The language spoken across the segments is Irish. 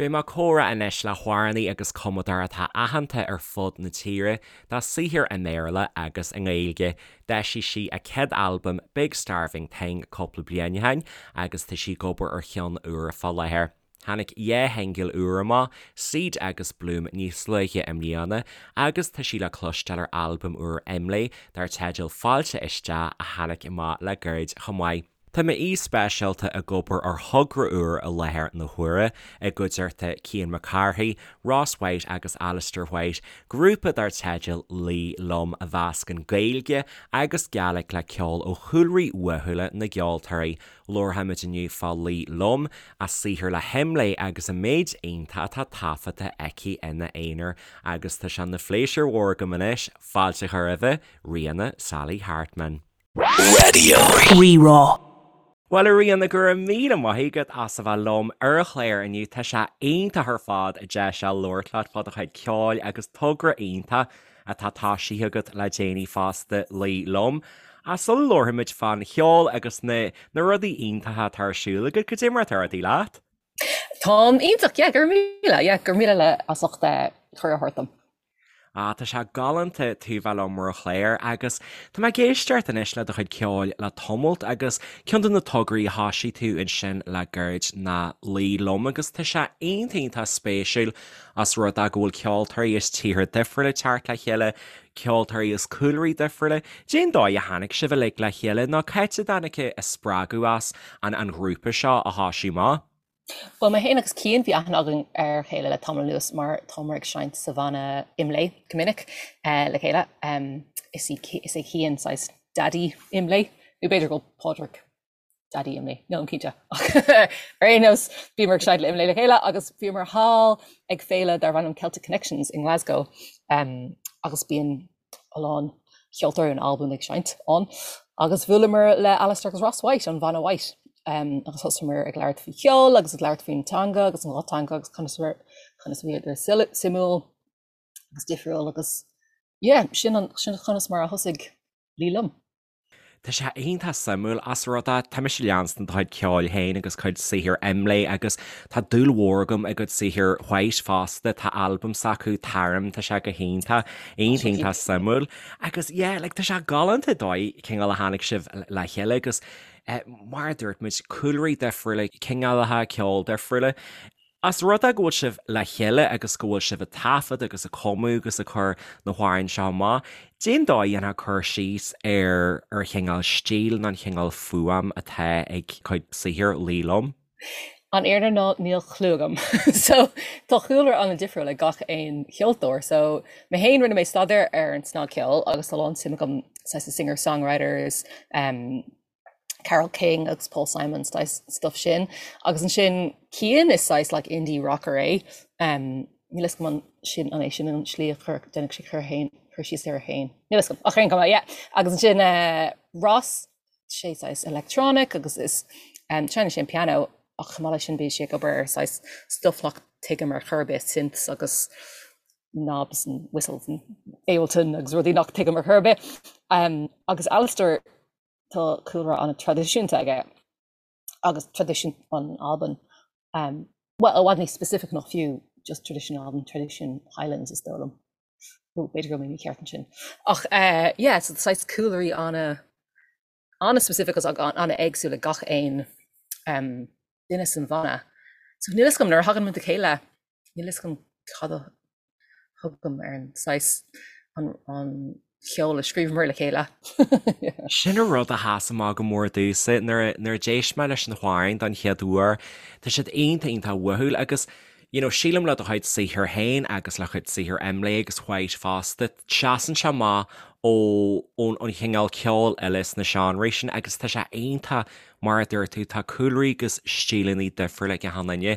Beidh mé ag comhrá anois le hamhránaí agus cumadóir atá aitheanta ar fud na tíre dá saothar i mBéarla agus i nGaeilge. D'eisigh sí a céad albam Big Starving Thing cúpla bliain ó shin agus tá sí ag obair ar cheann úr fá láthair. Tháinig dhá shingil úr amach, Seed agus Bloom níos luaithe i mbliana agus tá sí le cloisteáil ar albam úr Imlé dar teideal Fáilte Isteach a tháinig amach le gairid chomh maith. Tá m'aoi speisialta ag obair ar thogra úr i láthair na huaire, i gcuideachta Cian Mac Cárthaigh, Ross Whyte agus Alistair White, grúpa dar teideal Luí Liom a mheascann Gaeilge agus Gàidhlig le ceol ó chúlraí uathúla na gceoltóirí. Labharfaimid inniu fá Luí Liom, a saothar le hImlé agus an méid iontach atá taifeadta aici ina aonar agus tá sé ina phléisiúr mhór agam anois fáilte a chur roimhe, Ríona Sally Hartman. Raidió Rí-Rá. Bhuel a Ríona, go raibh míle maith agat as a bheith liom ar an chlár inniu. Tá sé iontach ar fad deis a labhairt leat fá do chuid ceoil agus togra iontach atá toisithe agat le déanaí fosta, Luí Liom. Ach sula labharfaimid fán cheol agus na na rudaí iontacha atá ar siúl agat, cad é mar atá rudaí leat? Táim iontach, yeah, go raibh míle, yeah, go raibh míle le as ucht cuireadh a thabhairt dom. Ah, tá sé galánta tú bheith liom ar an chlár agus tá mé ag éisteacht anois le do chuid ceoil le tamalt agus ceann de na tograí a thoisigh tú ansin le gairid ná Luí Liom agus tá sé iontach iontach spéisiúil as rud é go bhfuil ceoltóirí as tíortha difriúla ag teacht le chéile, ceoltóirí as cúlraí difriúla. Cén dóigh a tháinig sibh uilig le chéile nó cá háit a dtáinig an spreagadh as an an ghrúpa seo a thoisiú amach? Bhuel, mé féin agus Cian, bhí aithne againn ar a chéile le tamall anuas mar táimid ag seinnt sa bhanna Imlé go minic le chéile. Is í, is é Cian saghas daidí Imlé, nó b'fhéidir go bhfuil Pádraig daidí Imlé, nílim cinnte. Ach ar aon nós, bhíomar ag seinnt le Imlé le chéile agus bhíomar thall ag féile darbh ainm Celtic Connections i nGlasgow agus bíonn a lán ceoltóirí in Albain ag seinnt ann agus bhuaileamar le Alistair agus Ross Whyte, an bhanna Whyte, agus thosaíomar ag labhairt faoi cheol agus ag labhairt faoin teanga agus an dhá teanga agus conas conas a bhíodar suimiúil agus difriúil agus yeah, sin an sin conas mar a thosaigh Luí Liom. Tá sé iontach suimiúil as rud é, tá mise ag leanstan do chuid ceoil féin agus cuid saothair Imlé agus tá dúil mhór agam i gcuid saothair Whyte fosta, tá albam s'acu, Tarim, tá sé go hiontach, iontach iontach suimiúil. Agus yeah, like tá sé galánta dóigh cineál a tháinig sibh le chéile agus eh, mar a dúirt muid, cúlraí difriúla, cineálacha ceoil difriúla. As rud é go bhfuil sibh le chéile agus go bhfuil sibh ag taifead agus ag cumadh agus ag cur na hamhráin seo amach, cén dóigh a ndéanfá cur síos ar ar chineál stíl nó an chineál fuaim atá ag cuid saothair Luí Liom? An fhírinne ná níl clue agam. So tá cúlra an-difriúil ag gach aon cheoltóir. So mé féin rinne mé staidéar ar an snagcheol agus tá a lán suim agam saghas i singer-songwriters, um, Carole King agus Paul Simon saghas stuff sin. Agus ansin Cian is saghas like indie rocker é. Um, níl a fhios agam an sin an é sin an slí a chur déanadh sé cur féin cur síos air féin. Níl a fhios agam ach ar aon chuma yeah. Agus ansin uh, Ross sé saghas electronic agus is um, seinneann sé an piano ach chomh maith leis sin bíonn sé ag obair ar saghas stuff nach tuigim ar chor ar bith synths agus knobs and whistles and Ableton agus rudaí nach tuigim ar chor ar bith. Um, agus Alistair Tá cúlra an-traidisiúnta aige agus traidisiún an Albain, bhuel, i bhfad níos specific ná fiú just traidisiún Albain, traidisiún Highlands is dóigh liom. Nó b'fhéidir go bhfuil mé mícheart ansin. Ach yeah, so saghas cúlraí ana, ana-specific agus ana-éagsúil ag gach aon duine san bhanna. So níl a fhios agam, nuair a thagann muid le chéile, níl a fhios agam cad a thugaim ar an saghas an cheol a scríobhamar le chéile. Sin an rud a sheas amach go mór domhsa nuair a d'éist mé leis na hamhráin don chéad uair. Tá siad iontach iontach uathúil agus you know sílim le do chuid saothair féin agus le cuid saothair Imlé agus Whyte fosta, seasann sé amach ó ón an chineál ceoil eile sna seánraí sin agus tá sé iontach Mar a dúirt tú, tá cúlraí agus stíleanna difriúla ag achan duine,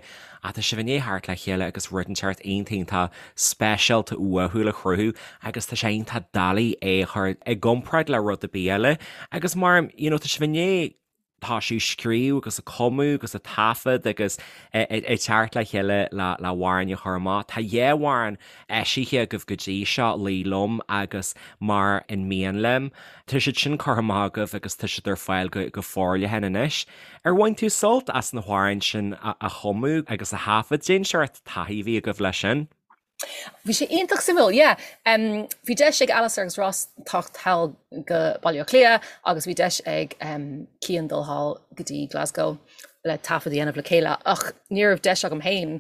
ach tá sibh i ndiaidh theacht le chéile agus rud inteacht iontach iontach speisialta uathúil a chruthú agus tá sé iontach doiligh é a chur i gcomparáid le rud ar bith eile. Agus mar, you know, tá sibh i ndiaidh. Tá sí ag scríobh agus ag cumadh agus ag taifead agus ag teacht le chéile le hamhráin a chur amach. Tá dhá amhrán eisithe agaibh go dtí seo, Luí Liom agus Mar Is Mian Liom. Tá siad sin curtha amach agaibh agus tá siad ar fáil go forleathan anois. Ar bhain tú sult as na hamhráin sin a chumadh agus a thaifead? Cén seort taithí a bhí agaibh leis sin? Bhí sé iontach suimiúil, yeah. Bhí deis ag Alastair agus Ross teacht thall go Baile Átha Cliath agus bhí deis ag Cian dul thall go dtí Glasgow le taifead a dhéanamh le chéile ach ní raibh deis agam féin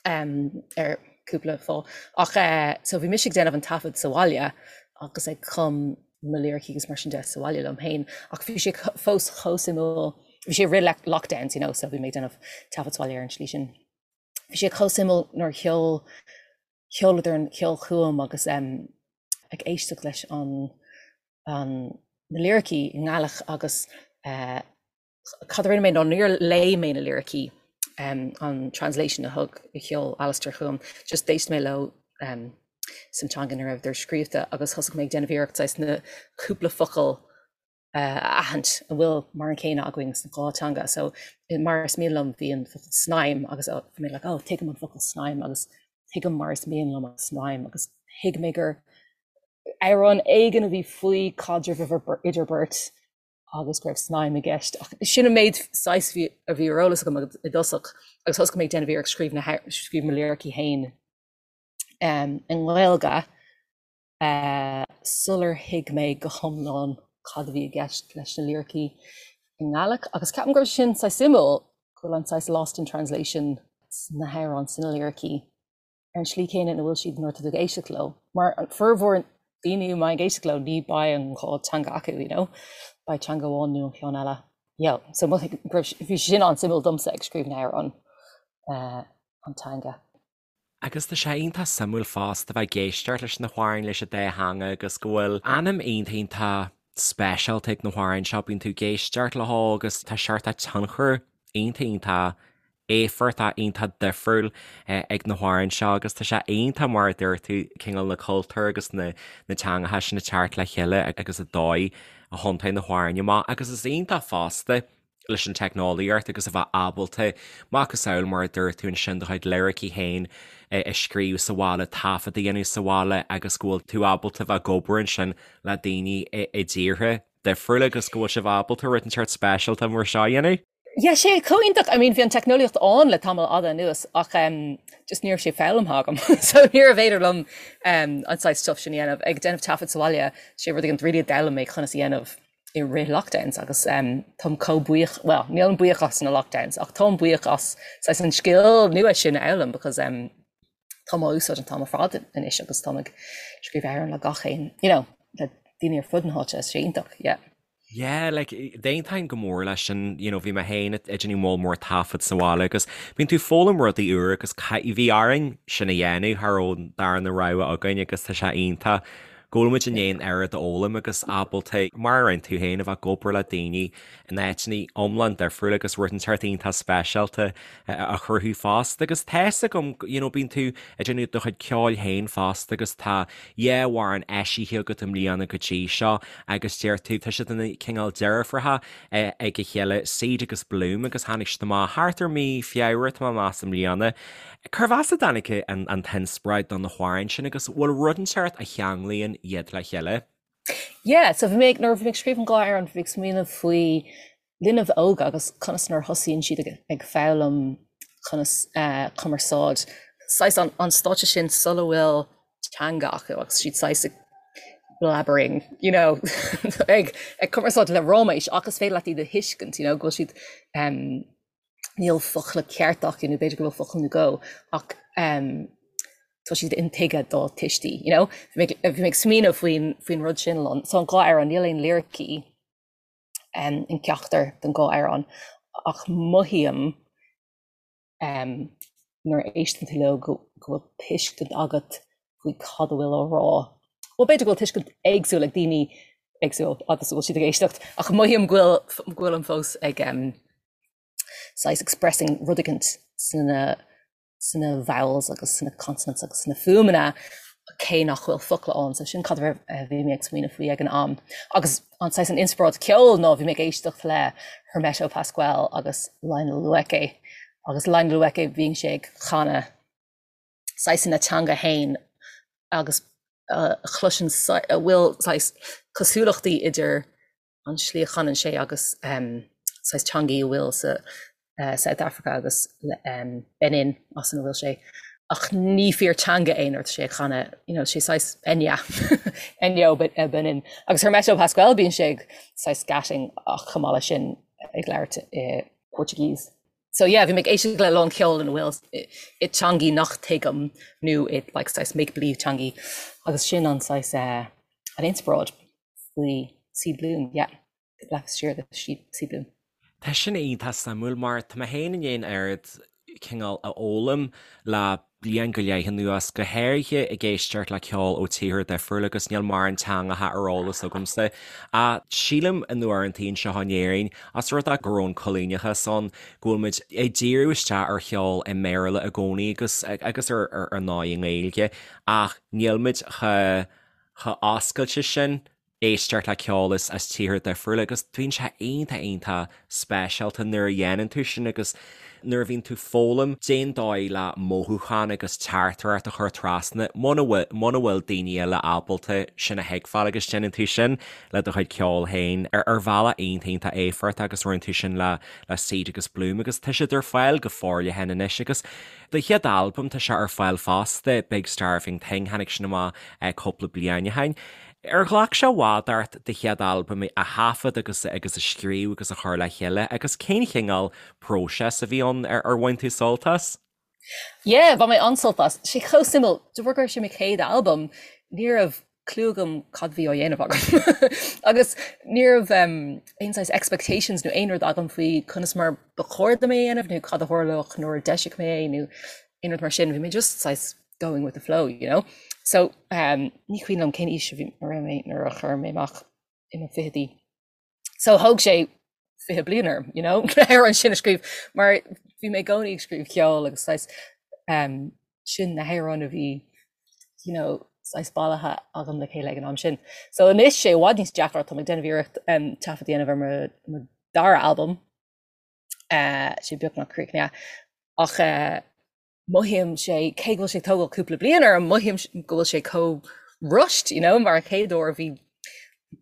ar cúpla fáth. Ach so bhí mise ag déanamh an taifead sa bhaile agus ag cum mo liricí agus mar sin de sa bhaile liom féin ach bhí sé fós chomh suimiúil, bhí sé i rith lockdowns you know so bhí mé ag déanamh taifead sa bhaile ar an tslí sin. Bhí sé chomh suimiúil nuair a sheol, sheoladar an ceol chugam agus ag éisteacht leis an, an, na liricí i nGaelic agus cad a rinne mé ná níor léigh mé na liricí, an translation a thug, a sheol Alastair chugam, just d'éist mé leo san teanga ina raibheadar scríobhta agus thosaigh mé ag déanamh iarracht saghas na cúpla focal a aithint a bhfuil mar an céanna againn sna dhá teanga. So mar is mian liom bhí an focal snaidhm agus bhí mé like oh tuigim an focal snaidhm agus tuigim mar is mian liom an snaidhm agus thuig mé gur amhrán éigin a bhí faoi caidreamh idir beirt agus go raibh snaidhm i gceist. Ach sin an méid saghas a bhí ar eolas agam i dtosach agus thosaigh mé ag déanamh iarracht scríobh na scríobh mo liricí féin i nGaeilge. sular thuig mé go hiomlán cad a bhí i gceist leis na liricí i nGaelic agus ceapaim go raibh sin saghas suimiúil, go bhfuil an saghas lost in translation sna hamhráin, sna liricí, ar an slí céanna ina bhfuil siad nuair atá tú ag éisteacht leo. Mar formhór daoine a mbeidh ag éisteacht leo ní beidh an dhá teanga acu, you know, beidh teanga amháin nó an ceann eile. Yeah, so go raibh, bhí sin an-suimiúil domsa ag scríobh na hamhrán, an teanga. Agus tá sé iontach suimiúil fosta bheith ag éisteacht leis na hamhráin leis an dá theanga agus go bhfuil anam iontach iontach speisialta ag na hamhráin seo, bíonn tú ag éisteacht leo agus tá seort tionchar iontach iontach éifeachtach iontach difriúil ag na hamhráin seo agus tá sé iontach mar a dúirt tú cineál na cultúir agus na teangacha sin ag teacht le chéile agus an dóigh a thiontaigh na hamhráin amach agus is iontach fosta leis an teicneolaíocht agus a bheith ábalta, macasamhail mar a dúirt tú ansin, do chuid liricí féin a scríobh sa bhaile, taifead a dhéanamh sa bhaile agus go bhfuil tú ábalta bheith ag obair ansin le daoine i dtíortha difriúla agus go bhfuil sibh ábalta rud inteacht speisialta mar seo a dhéanamh. Yeah, sé chomh iontach, I mean bhí an teicneolaíocht ann le tamall fhada anuas ach um, just ní raibh sé foghlamtha agam so níorbh fhéidir liom um, an saghas stuff sin a dhéanamh. Ag déanamh taifead sa bhaile, sé rud éigin really a d'fhoghlaim mé conas a dhéanamh. i rith lockdowns agus táim chomh buíoch, bhuel, nílim buíoch as na lockdowns ach táim buíoch as saghas an scil nua sin a fhoghlaim because táim á úsáid an t-am ar fad anois agus táim ag scríobh amhrán le gach aon, you know, le daoine ar fud na háite, is sé iontach, yeah. Yeah, like, d'aontóinn go mór leis sin, you know, bhí mé féin ag déanamh moll mór taifead sa bhaile agus bíonn tú ag foghlaim rudaí úr agus bhí orainn sin a dhéanamh, cha raibh an darna rogha againn agus tá sé iontach go bhfuil muid i ndiaidh an oiread a fhoghlaim agus ábalta, mar a rinne tú féin, a bheith ag obair le daoine in áiteanna iomlán difriúla agus rud inteacht iontach speisialta a chruthú fosta. Agus tá's agam, you know, bíonn tú ag déanamh do chuid ceoil féin fosta agus tá dhá amhrán eisithe agat i mbliana go dtí seo agus deir tú, tá siad ina cineál deirfiúracha ag a chéile, Seed agus Bloom agus tháinig siad amach thart ar mí Feabhra, tá mé ag meas, i mbliana. Cérbh as a dtáinig an t-inspioráid do na hamhráin sin agus bhfuil rud inteacht a cheanglaíonn iad le chéile? Yeah, so bhí mé ag, nuair a bhí mé ag scríobh an dhá amhrán, bhí mé ag smaoineamh faoi linbh óga agus conas nuair a thosaíonn siad ag, ag foghlaim conas eh, cumarsáid, saghas an, an stáitse sin sula bhfuil teanga acu agus siad saghas ag blabbering, you know, ag, ag cumarsáid le ráiméis ach is féidir leat iad a thuiscint, you know, go bhfuil siad em, níl focla ceart acu nó b'fhéidir go bhfuil focal nó dhó ach tá siad intuigthe dá tuistí, you know? Bhí mé ag smaoineamh faoin faoin rud sin lon. So an dhá amhrán, níl aon liricí in ceachtar den dhá amhrán ach mothaím nuair a éisteann tú leo go bhfuil tuiscint agat faoi cad a bhfuil á rá. Bhuel b'fhéidir go bhfuil tuiscint éagsúil ag daoine éagsúil agus a bhfuil siad ag éisteacht ach mothaím go bhfuil go bhfuilim fós ag saghas expressing rud éicint sna sna vowels agus sna consonants agus sna fuaimeanna. cé nach bhfuil focla ann, so sin cad a bhí mé ag smaoineamh faoi ag an am. Agus an saghas an inspioráid ceoil ná bhí mé ag éisteacht le Hermeto Pascoal agus Lionel Loueke agus Lionel Loueke bíonn sé ag canadh saghas ina teanga fhéin agus a chloiseann a bhfuil saghas cosúlachtaí idir an slí a chanann sé agus saghas teangaí a bhfuil sa South Africa agus Benin as ina bhfuil sé ach ní fíor teanga é nuair atá sé ag canadh you know sé saghas Enya Enyo Benin agus Hermeto Pascoal bíonn sé ag saghas scatting ach chomh maith leis sin ag labhairt i Portuguese. So yeah bhí mé ag éisteacht le lán ceoil ina bhfuil i teangaí nach tuigim nó i like saghas make believe teangaí agus sin an saghas an inspioráid. faoi Seed Bloom, yeah, leath siar de Seed Bloom. Tá sin iontach suimiúil mar tá mé féin i ndiaidh an oiread cineál a fhoghlaim le bliain go leith anuas, go háirithe ag éisteacht le ceol ó tíortha difriúla agus níl mórán teangacha ar eolas agamsa. Ach sílim in uaireantaí anseo in Éirinn, as rud é go raibh an coilíneachas ann, go bhfuil muid ag díriú isteach ar cheol i mBéarla i gcónaí agus agus ar ar ndóigh i nGaeilge ach níl muid chomh chomh oscailte sin éisteacht le ceol as as tíortha difriúla agus bíonn sé iontach iontach speisialta nuair a dhéanann tú sin agus nuair a bhíonn tú foghlaim cén dóigh le mothúchán agus teachtaireacht a chur trasna muna bhfuil muna bhfuil daoine eile ábalta sin a thuigbheáil agus déanann tú sin le do chuid ceoil féin ar ar bhealach iontach iontach éifeachtach agus rinne tú sin le le Seed agus Bloom agus tá siad ar fáil go forleathan anois agus Do chéad albam, tá sé ar fáil fosta, Big Starving Thing, tháinig sin amach cúpla bliain ó shin. Ar ghlac sé i bhfad ort do chéad albam a thaifead agus agus a scríobh agus a chur le chéile agus cén chineál próiseas a bhí ann? Ar bhain tú sult as? Yeah, bhain mé an-sult as. Sé chomh suimiúil, de bharr go raibh sé mo chéad albam, ní raibh clue agam cad bhí á dhéanamh agam. Agus ní raibh aon saghas expectations nó aon rud agam faoi conas mar ba chóir dom é a dhéanamh nó cad a tharlódh nuair a d'eiseodh mé é nó aon rud mar sin. Bhí mé just saghas going with the flow, you know? So um, ní cuimhin liom cén aois a bhí a raibh mé nuair a chuir mé amach i mo fichidí. So thóg sé 20 bliain orm, you know, ar an sin a scríobh, mar bhí mé i gcónaí ag scríobh ceoil agus saghas um, sin na hamhráin a bhí you know, saghas bailithe agam le chéile ag an am sin. So anois sé i bhfad níos deacra tá mé ag déanamh iarracht um, taifead a dhéanamh ar mo, mo dara albam uh, sé beagnach críochnaithe ach uh, mothaím sé, cé go bhfuil sé ag tógáil cúpla bliain orm, mothaím go bhfuil sé chomh rushed, you know, mar an chéad uair bhí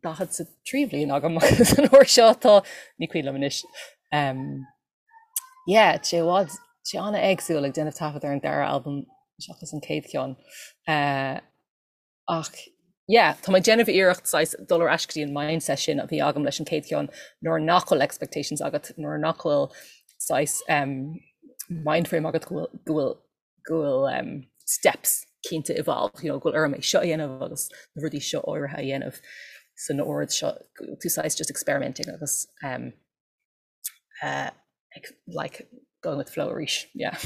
43 bhliain agam agus an uair seo tá, ní cuimhin liom anois. Um, yeah, sé i bhfad, sé an-éagsúil ag déanamh taifead ar an dara albam seachas an chéad cheann. Uh, Ach yeah, tá mé ag déanamh iarracht saghas dul ar ais go dtí an mindset sin a bhí agam leis an chéad cheann nuair nach bhfuil expectations agat, nuair nach bhfuil saghas um, mind frame agat go bhfuil, go bhfuil, go bhfuil um, steps cinnte involved, you know, go bhfuil orm é seo a dhéanamh agus na rudaí seo áirithe a dhéanamh san ord seo, tú saghas just experimenting agus um, uh, like going with the flow arís, yeah.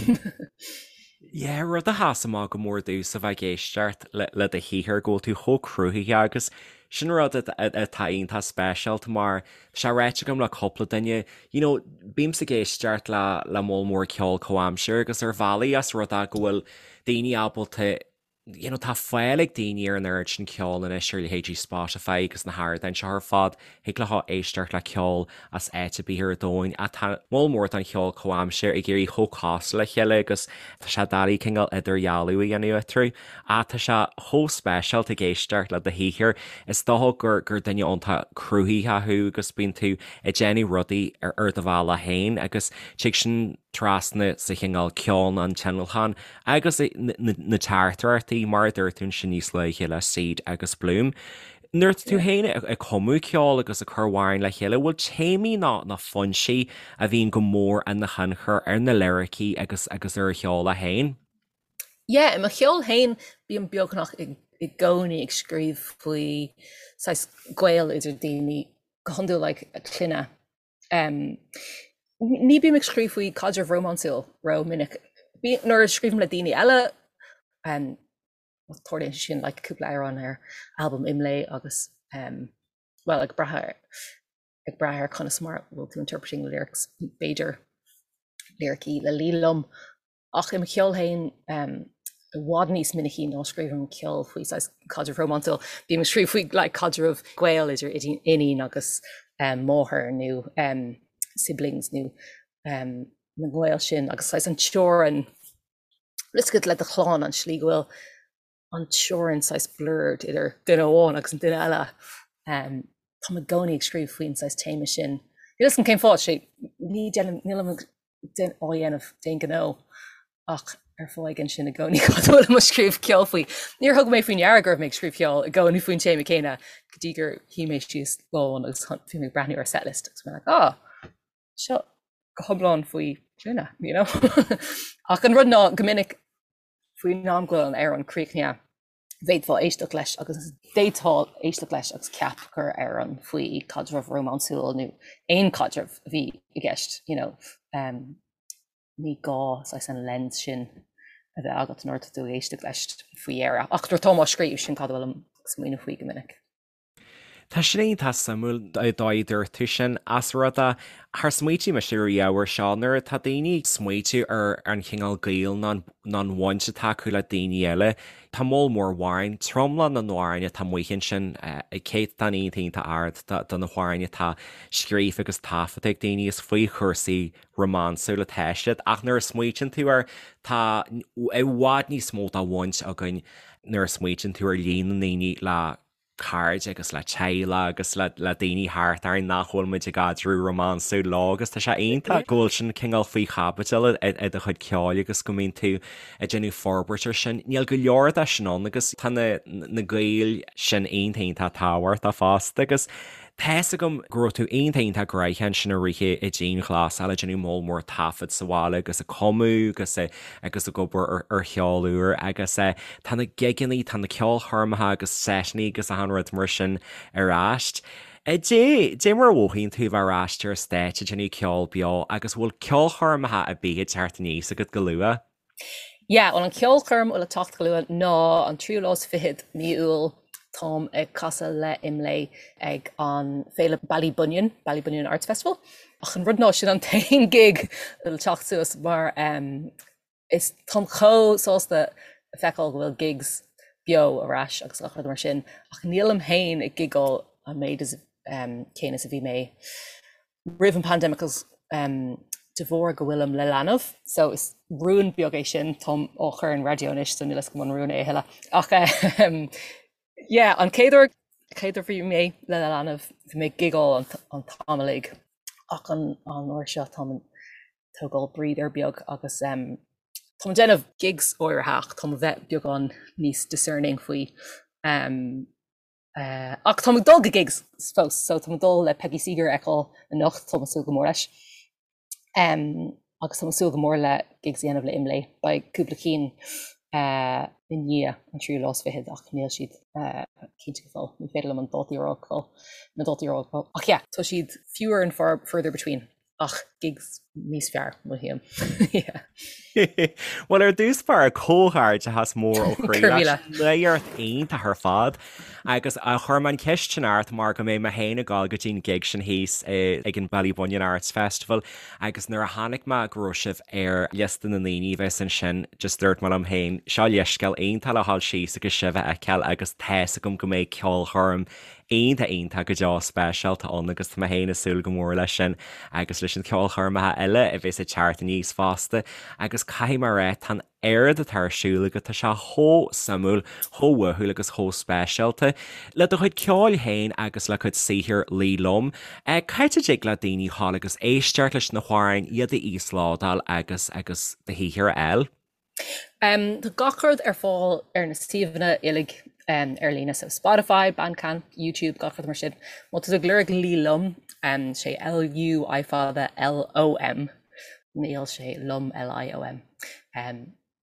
Yeah, rud a sheas amach go mór domhsa a bheith ag éisteacht le, le do shaothar go bhfuil tú chomh cruthaitheach agus sin rud atá iontach speisialta mar tá sé ráite agam le cúpla duine, you know, bímse ag éisteacht le, le moll mór ceol comhaimseartha agus ar bhealaí as rud é go bhfuil daoine ábalta you know, tá fáil ag daoine ar an oiread sin ceoil anois ar leithéidí Spotify agus na hardáin seo ar fad, thig leo éisteacht le ceol as áit ar bith ar domhan ach tá moll mór den cheol comhaimseartha ag éirí chomh cosúil le chéile agus tá sé doiligh cineál idirdhealú a dhéanamh eatarthu. Ach tá sé chomh speisialta ag éisteacht le do shaothar, is dócha gur gur duine iontach cruthaitheach thú agus bíonn tú ag déanamh rudaí ar ar do bhealach féin agus tig sin trasna sa chineál ceol an tionlacan Agus na teachtaireachtaí, mar a dúirt tú ansin níos luaithe le Seed agus Bloom. Nuair atá tú féin ag cumadh ceoil agus ag cur amhráin le chéile, bhfuil téamaí ná na foinsí a bhíonn go mór ina thionchar ar na liricí agus agus ar an cheol é féin? Yeah, i mo cheol féin bím beagnach i gcónaí ag scríobh faoi saghas gaol idir daoine, go hiondúil like clainne. Um, ní bím ag scríobh faoi caidreamh rómánsúil ró minic. Nuair a scríobhaim le daoine eile, um, tarlaíonn sé sin like, cúpla amhrán ar albam Imlé agus um, well, ag brath ar ag brath ar conas mar bhfuil tú interpreting the lyrics b'fhéidir liricí le Liam. Ach i mo cheol féin um, i bhfad níos minicí ná scríobhaim ceol faoi saghas caidreamh rómánsúil. Bím ag scríobh faoi like caidreamh gaol idir iníon agus máthair nó siblings nó na gaoil sin agus saghas an teorainn bhfuil a fhios agat le do chlann an slí go bhfuil an teorainn saghas blurred idir duine amháin agus an duine eile. Táim i gcónaí ag scríobh faoin saghas téama sin. Níl fhios agam cén fáth, sé ní déanaim, nílim á dhéanamh d'aon ghnó ach ar fáth éigin sin i gcónaí cad a bhfuilim ag scríobh ceol faoi. Níor thug mé faoi ndeara go raibh mé ag scríobh ceol i gcónaí faoin téama céanna go dtí gur shuigh mé síos lá amháin agus bhí mé ag breathnú ar setlist agus mé like ah seo go hiomlán faoi clainne, you know? Ach an rud ná go minic faoin am go bhfuil an amhrán críochnaithe bhféadfá éisteacht leis agus d'fhéadfá éisteacht leis agus ceap gur amhrán faoi caidreamh rómánsúil nó aon caidreamh a bhí i gceist, you know. Um, ní gá saghas an lens sin a bheith agat nuair atá tú ag éisteacht leis faoi dheireadh. Ach nuair atáim á scríobh, sin cad a bhfuilim ag smaoineamh faoi go minic. Tá sin iontach suimiúil an dóigh a dúirt tú sin as rud é char smaoitigh mise riamh air seo nuair atá daoine ag smaoitiú ar an chineál gaoil nó an bhaint atá acu le daoine eile. Tá moll mór amhrán, tromlach na n-amhrán atá amuigh ansin, céatadán iontach iontach ard de na hamhráin atá scríofa agus taifeadta ag daoine is faoi chúrsaí rómánsúil atá siad ach nuair a smaoitíonn tú air tá i bhfad níos mó de bhaint againn nuair a smaoitíonn tú ar líon na ndaoine le cairde agus le teaghlaigh agus le daoine thart orainn nach bhfuil muid i gcaidreamh rómánsúil leo agus tá sé iontach go bhfuil sin cineál faoi chaibidil i do chuid ceoil agus go mbíonn tú ag déanamh forbairt ar sin. Níl go leor de sin ann agus tá na na gaoil sin iontach iontach tábhachtach fosta agus Tá's agam go raibh tú iontach iontach gnoitheach ansin i rith an dianghlasáil ag déanamh moll mór taifead sa bhaile agus ag cumadh agus agus ag obair ar cheol úr agus tá na gigeanna, tá na ceolchoirmeacha agus seiteanna agus achan rud mar sin ar ais. Dé, dé mar a mhothaíonn tú a bheith ar ais ar an stáitse ag déanamh ceol beo agus bhfuil ceolchoirmeacha ar bith ag teacht aníos agat go luath? Yeah, bhuel an ceolchoirm a bhfuil ag teacht go luath ná an tríú lá is fichead mí Iúil táim ag casadh le Imlé ag an Féile Ballybunion, Ballybunion Arts Festival. Ach an rud ná sin an t-aon gig a bhfuil ag teacht suas mar um, is táim chomh sásta a feiceáil go bhfuil gigs beo ar ais agus gach rud mar sin ach nílim féin ag gigáil an méid is um, céanna is a bhí mé roimh an pandemic agus de bharr go bhfuilim le leanbh so is rún beag é sin, táim á chur ar an raidió anois so níl fhios agam an rún é a thuilleadh ach yeah an chéad uair chéad uair bhí mé le leanbh bhí mé ag gigáil an t-am uilig ach an an uair seo táim ag tógáil breather beag agus táim ag déanamh gigs áirithe ach táim a bheith beagán níos discerning faoi Ach táim ag dul go gigs fós, so táim ag dul le Peggy Seeger a fheiceáil anocht, táim ag súil go mór leis. Agus táim ag súil go mór le gigs a dhéanamh le Imlé. Beidh cúpla cinn i ndiaidh an tríú lá is fichead ach níl siad cinnte go fóill. Ní féidir liom an dátaí a rá go fóill, na dátaí a rá go fóill. Ach yeah, tá siad fewer and far further between. Ach gigs níos fearr, mothaím. Yeah. Bhuel, ar dtús báire, comhghairdeachas mór ó chroí leat. Nuacht iontach ar fad. Agus chuir mé an cheist sin ort mar go mbeidh mé féin ag dul go dtí an gig sin thíos ag an Ballybunion Arts Festival agus nuair a chonaic mé go raibh sibh ar liosta na ndaoine a bheas ansin, just dúirt mé liom féin, seo leithscéal iontach le dhul síos agus sibh a fheiceáil agus tá's agam go mbeidh ceolchoirm iontach iontach go deo speisialta ann agus tá mé féin ag súil go mór leis sin agus leis na ceolchoirmeacha eile a bheas ag teacht aníos fosta agus caithfidh mé a rá tá an oiread atá ar siúl agat, tá sé chomh suimiúil, chomh uathúil agus chomh speisialta. Le do chuid ceoil féin agus le cuid saothair Luí Liom, cá háit a dtig le daoine dhul agus éisteacht leis na hamhráin, iad a íoslódáil agus agus do shaothar a fháil? Tá gach rud ar fáil ar na suíomhanna uilig ar líne, so Spotify, Bandcamp, YouTube, gach rud mar sin. Má tá tú ag lorg Luí Liom, sé L-U I fada L-O-M, níl sé Liom L-I-O-M,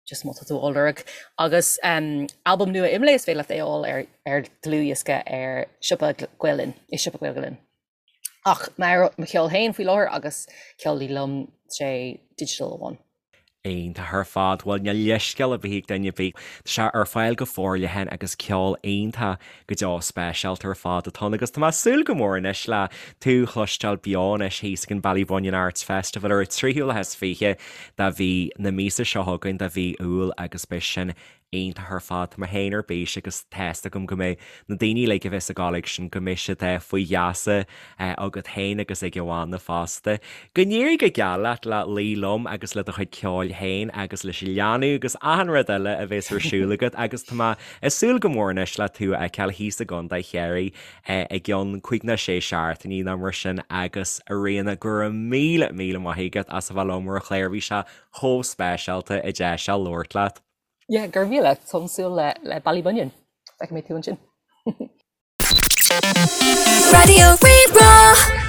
just má tá tú á lorg. Agus albam nua Imlé, is féidir leat é a fháil ar ar dlúthdhiosca ar siopa Gael Linn, i siopa Gael Linn. Ach mo cheol féin faoi láthair agus ceol Luí Liom, sé digital amháin. Iontach ar fad. Bhuel, níl leithscéal ar bith ag duine ar bith. Tá sé ar fáil go forleathan agus ceol iontach go deo speisialta ar fad atá ann agus tá mé ag súil go mór anois le tú a chloisteáil beo anois thíos ag an Ballybunion Arts Festival ar an 23ú lá de mhí na míosa seo chugainn, de mhí Iúil agus beidh sin. Iontach ar fad. Tá mé féin ar bís agus tá's agam go mbeidh na daoine uilig a bheas ag gabháil ag sin go mbeidh siad faoi gheasa agat féin agus ag an bhanna fosta. Go n-éirí go geal leat le Luí Liom agus le do chuid ceoil féin agus leis an leanbh agus achan rud eile a bheas ar siúl agat agus tá mé ag súil go mór anois le tú a fheiceáil thíos i gContae Chiarraí i gcionn cúig nó sé seachtainí nó mar sin agus a Ríona go raibh míle míle maith agat as a bheith liom ar an chlár bhí sé chomh speisialta an deis seo labhairt leat. Yeah, go raibh míle. Táim ag súil le le Ballybunion. Feicfidh mé tú ansin. Raidió Rí-Rá.